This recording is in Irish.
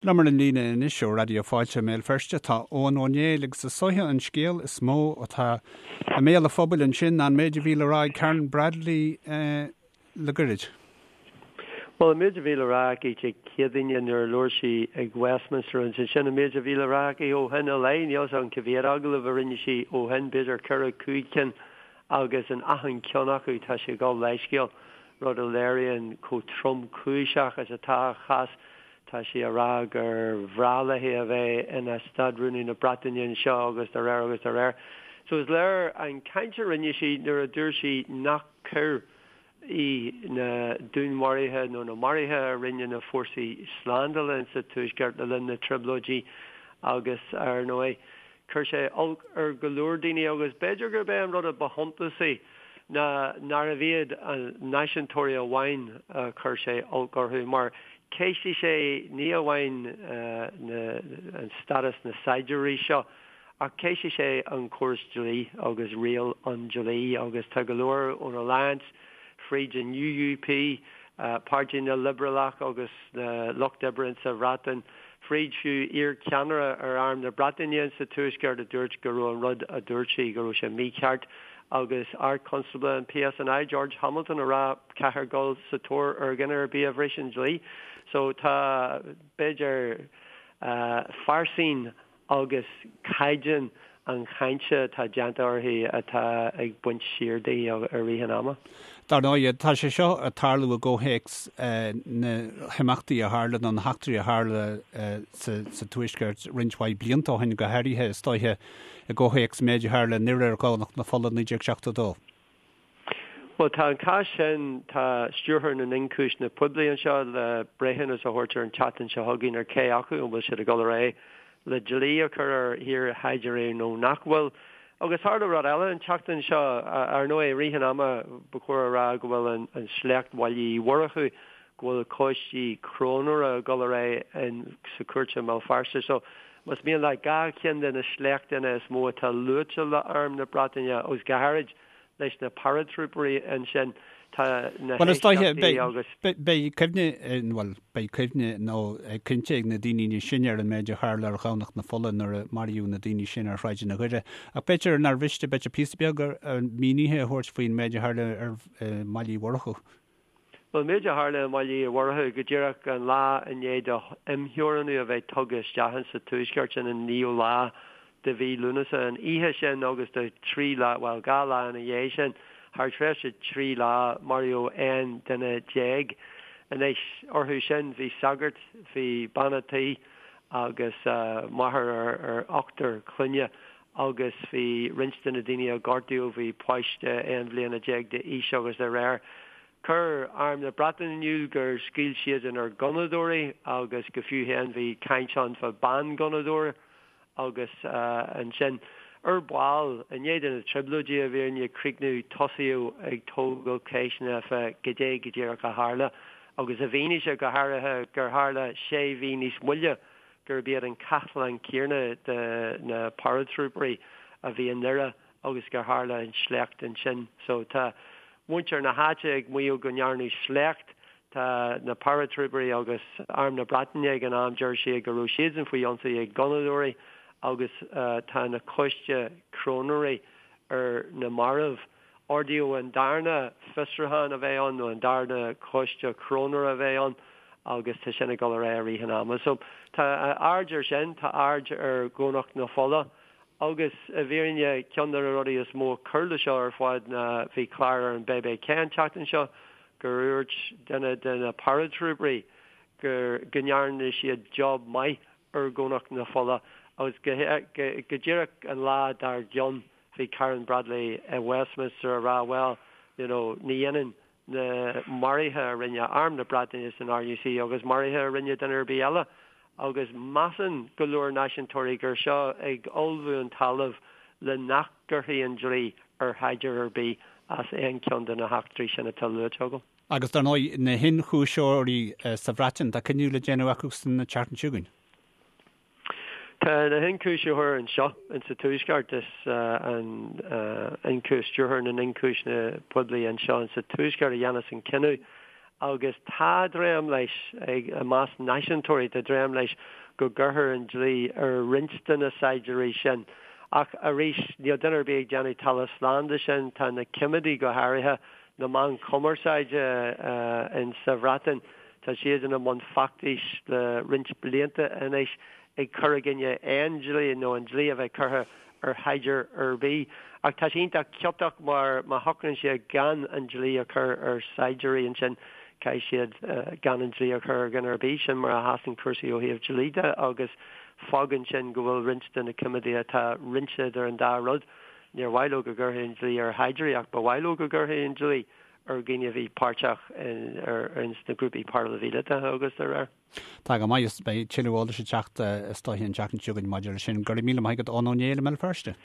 Liom ar an líne anois ó Raidió Fáilte i mBéal Feirste tá Eoghan Ó Néill agus is dóiche an scéal is mó atá i mbéal an phobail ansin ná an méid a bhí le rá ag Karen Bradley le goirid. Bhuel, an méid a bhí le rá aici Dé Céadaoine nuair a labhair sí ag Westminster agus ansin an méid a bhí le rá aici ó shin i leith, níl 'fhios agam cá mhéad agallamh a rinne sí ó shin, b'fhéidir ceithre, chúig cinn agus in achan cheann acu tá sí ag gabháil leithscéal, rud a léiríonn chomh tromchúiseach is atá a chás. Tá sí a rá gur bhreá léi a bheith ina Stát-Rúnaí na Breataine anseo agus dá réir agus dá réir. So is léir an chaint a rinne sí nuair a dúirt sí nach coir í na dúnmharuithe nó na maruithe a rinne na fórsaí slándála insa Tuaisceart le linn na dTrioblóidí agus ar ndóigh Chuir sé olc ar go leor daoine agus b'fhéidir gurb é an rud a ba shuntasaí ná nárbh iad na náisiúntóirí amháin a chuir sé olc orthu mar cheistigh sé ní amháin an stádas na saighdiúirí seo ach cheistigh sé an córas dlí agus riail an dlí agus tá go leor ón Alliance fríd an UUP, Páirtí na Liobrálach agus na Lucht Oibre insa Bhreatain, fríd fiú iar-cheannaire ar Arm na Breataine insa Tuaisceart a dúirt go raibh an rud a dúirt sí, go raibh sé mícheart agus Ard-Chonstábla an PSNI, George Hamilton, a rá caithfear dul sa tóir ar dhuine ar bith a bhris an dlí. So tá, b'fhéidir, pearsa agus caighdeán an chainte atá déanta uirthi atá ag baint siar di i rith an ama. Dar ndóigh, tá sé seo ag tarlú i gcomhthéacs na himeachtaí a tharla nó na heachtraí a tharla sa Tuaisceart roinnt mhaith blianta ó shin, go háirithe, is dóiche, i gcomhthéacs an méid a tharla i nDoire ar Dhomhnach na Fola 1972. Bhuel, tá an cás sin, tá Stiúrthóir na nIonchúiseanna Poiblí anseo le breithiúnas a thabhairt ar an tseachtain seo chugainn ar cé acu an bhfuil siad ag dul ar aghaidh le dlí a chur ar iar-shaighdiúirí nó nach bhfuil. Agus tharla rud eile an tseachtain seo, ar ndóigh, i rith an ama ba chóir a rá go bhfuil an sléacht Bhaile Uí Mhurchú, go bhfuil coistí cróinéara ag dul ar aghaidh sa chúirt i mBéal Feirste. So, más mian leat, 2 cheann de na sléachtanna is mó atá luaite le Arm na Breataine agus go háirid leis na paratrúipéirí ansin, tá na Bhuel, is dóiche, héisteachtaí agus. beidh cuimhne, bhuel, beidh cuimhne nó cinnte ag na daoine níos sine ar an méid a tharla ar Dhomhnach na Fola nuair a maraíodh na daoine sin ar shráideanna Dhoire. Ach b'fhéidir nár mhiste, b'fhéidir píosa beag mínithe a thabhairt faoin méid a tharla ar i mBaile Uí Mhurchú. Bhuel, an méid a tharla i mBaile Uí Mhurchú go díreach an lá i ndiaidh do imtheorannú a bheith tugtha isteach insa Tuaisceart, sin an naoú lá de mhí Lúnasa, an oíche sin agus do thrí lá, bhuel, 2 lá ina dhiaidh sin, thar tréimhse trí lá, maraíodh 11 duine. Anois, orthu sin bhí sagart, bhí bean a' tí agus máthair ar ochtar clainne agus bhí roinnt de na daoine a gortaíodh, bhí páiste 11 bhliana d'aois agus dá réir. Chuir Arm na Breataine in iúl gur scaoil siadsan ar ghunnadóirí agus go fiú féin bhí caint ann fá bhean-ghunnadóir agus ansin ar ball, i ndiaidh do na trioblóidí i bhfírinne críochnú, tosaíodh ag tógáil ceisteanna fá goidé go díreach a tharla agus i bhfianaise go háirithe gur tharla sé mhí níos moille gurb iad an cathlán céanna de na paratrúipéirí a bhí i nDoire agus gur tharla an sléacht ansin. So tá muintir na háite ag maíomh go ndearnadh sléacht. Tá na paratrúipéirí agus Arm na Breataine ag an am, deir siad go raibh siadsan faoi ionsaí ag gunnadóirí agus tá na coiste cróinéirí ar na mairbh. Ordaíodh an darna fiosrúchán a bheith ann, nó an darna coiste cróinéara a bheith ann, agus tá sin ag dul ar aghaidh i rith an ama. So, tá aird ar sin, tá aird ar Dhomhnach na Fola, agus i bhfírinne, ceann de na rudaí is mó a chuir le seo ar fad ná bhí clár ar an bbc an tseachtain seo gur dhúirt duine de na paratrúipéirí gur go ndearna siad job maith ar Dhomhnach na Fola agus go díreach an lá dár gcionn bhí Karen Bradley i Westminster a rá bhuel, you know, ní ionann na maruithe a rinne Arm na Breataine is an RUC agus maruithe a rinne duine ar bith eile agus measann go leor náisiúntóirí gur seo ag ullmhú an talamh le nach gcuirfí an dlí ar shaighdiúir ar bith as aon cheann de na heachtraí sin atá luaite agam. Agus dar ndóigh, na hionchúiseoirí sa Bhreatain, tá cinneadh le déanamh acu san tseachtain seo chugainn. Tá na hionchúisitheoirí anseo insa Tuaisceart, is an Stiúrthóir na nIonchúiseanna Poiblí anseo insa Tuaisceart a dhéanfas an cinneadh. Agus tá dréim leis, ag, i measc náisiúntóirí, tá dréim leis go gcuirfear an dlí ar roinnt de na saighdiúirí sin. Ach arís, níl duine ar bith ag déanamh talamh slán de sin. Tá na coimeádaigh, go háirithe, na meáin chumarsáide in sa Bhreatain, tá siad ina mbun feachtais le roinnt blianta anois ag cur i gcoinne aon dlí nó an dlí a bheith curtha ar shaighdiúir ar bith. Ach tá sé iontach ciotach mar má shocraíonn siad gan an dlí a chur ar shaighdiúirí ansin caithfidh siad gan an dlí a chur ar dhuine ar bith. Sin mar a sheasann cúrsaí ó thaobh dlí de agus fágann sin go bhfuil roinnt de na coimeádaithe atá roinnte idir an dá rud. Níor mhaith leo go gcuirfí an dlí ar shaighdiúirí ach ba mhaith leo go gcuirfí an dlí ar dhaoine a bhí páirteach in sna grúpaí paraimhíleatacha agus dá réir. Tá go maith, beidh tuilleadh eolais ag teacht is dóiche an tseachtain seo chugainn maidir leis sin. Go raibh míle maith agat Eoin Ó Néill i mBéal Feirste.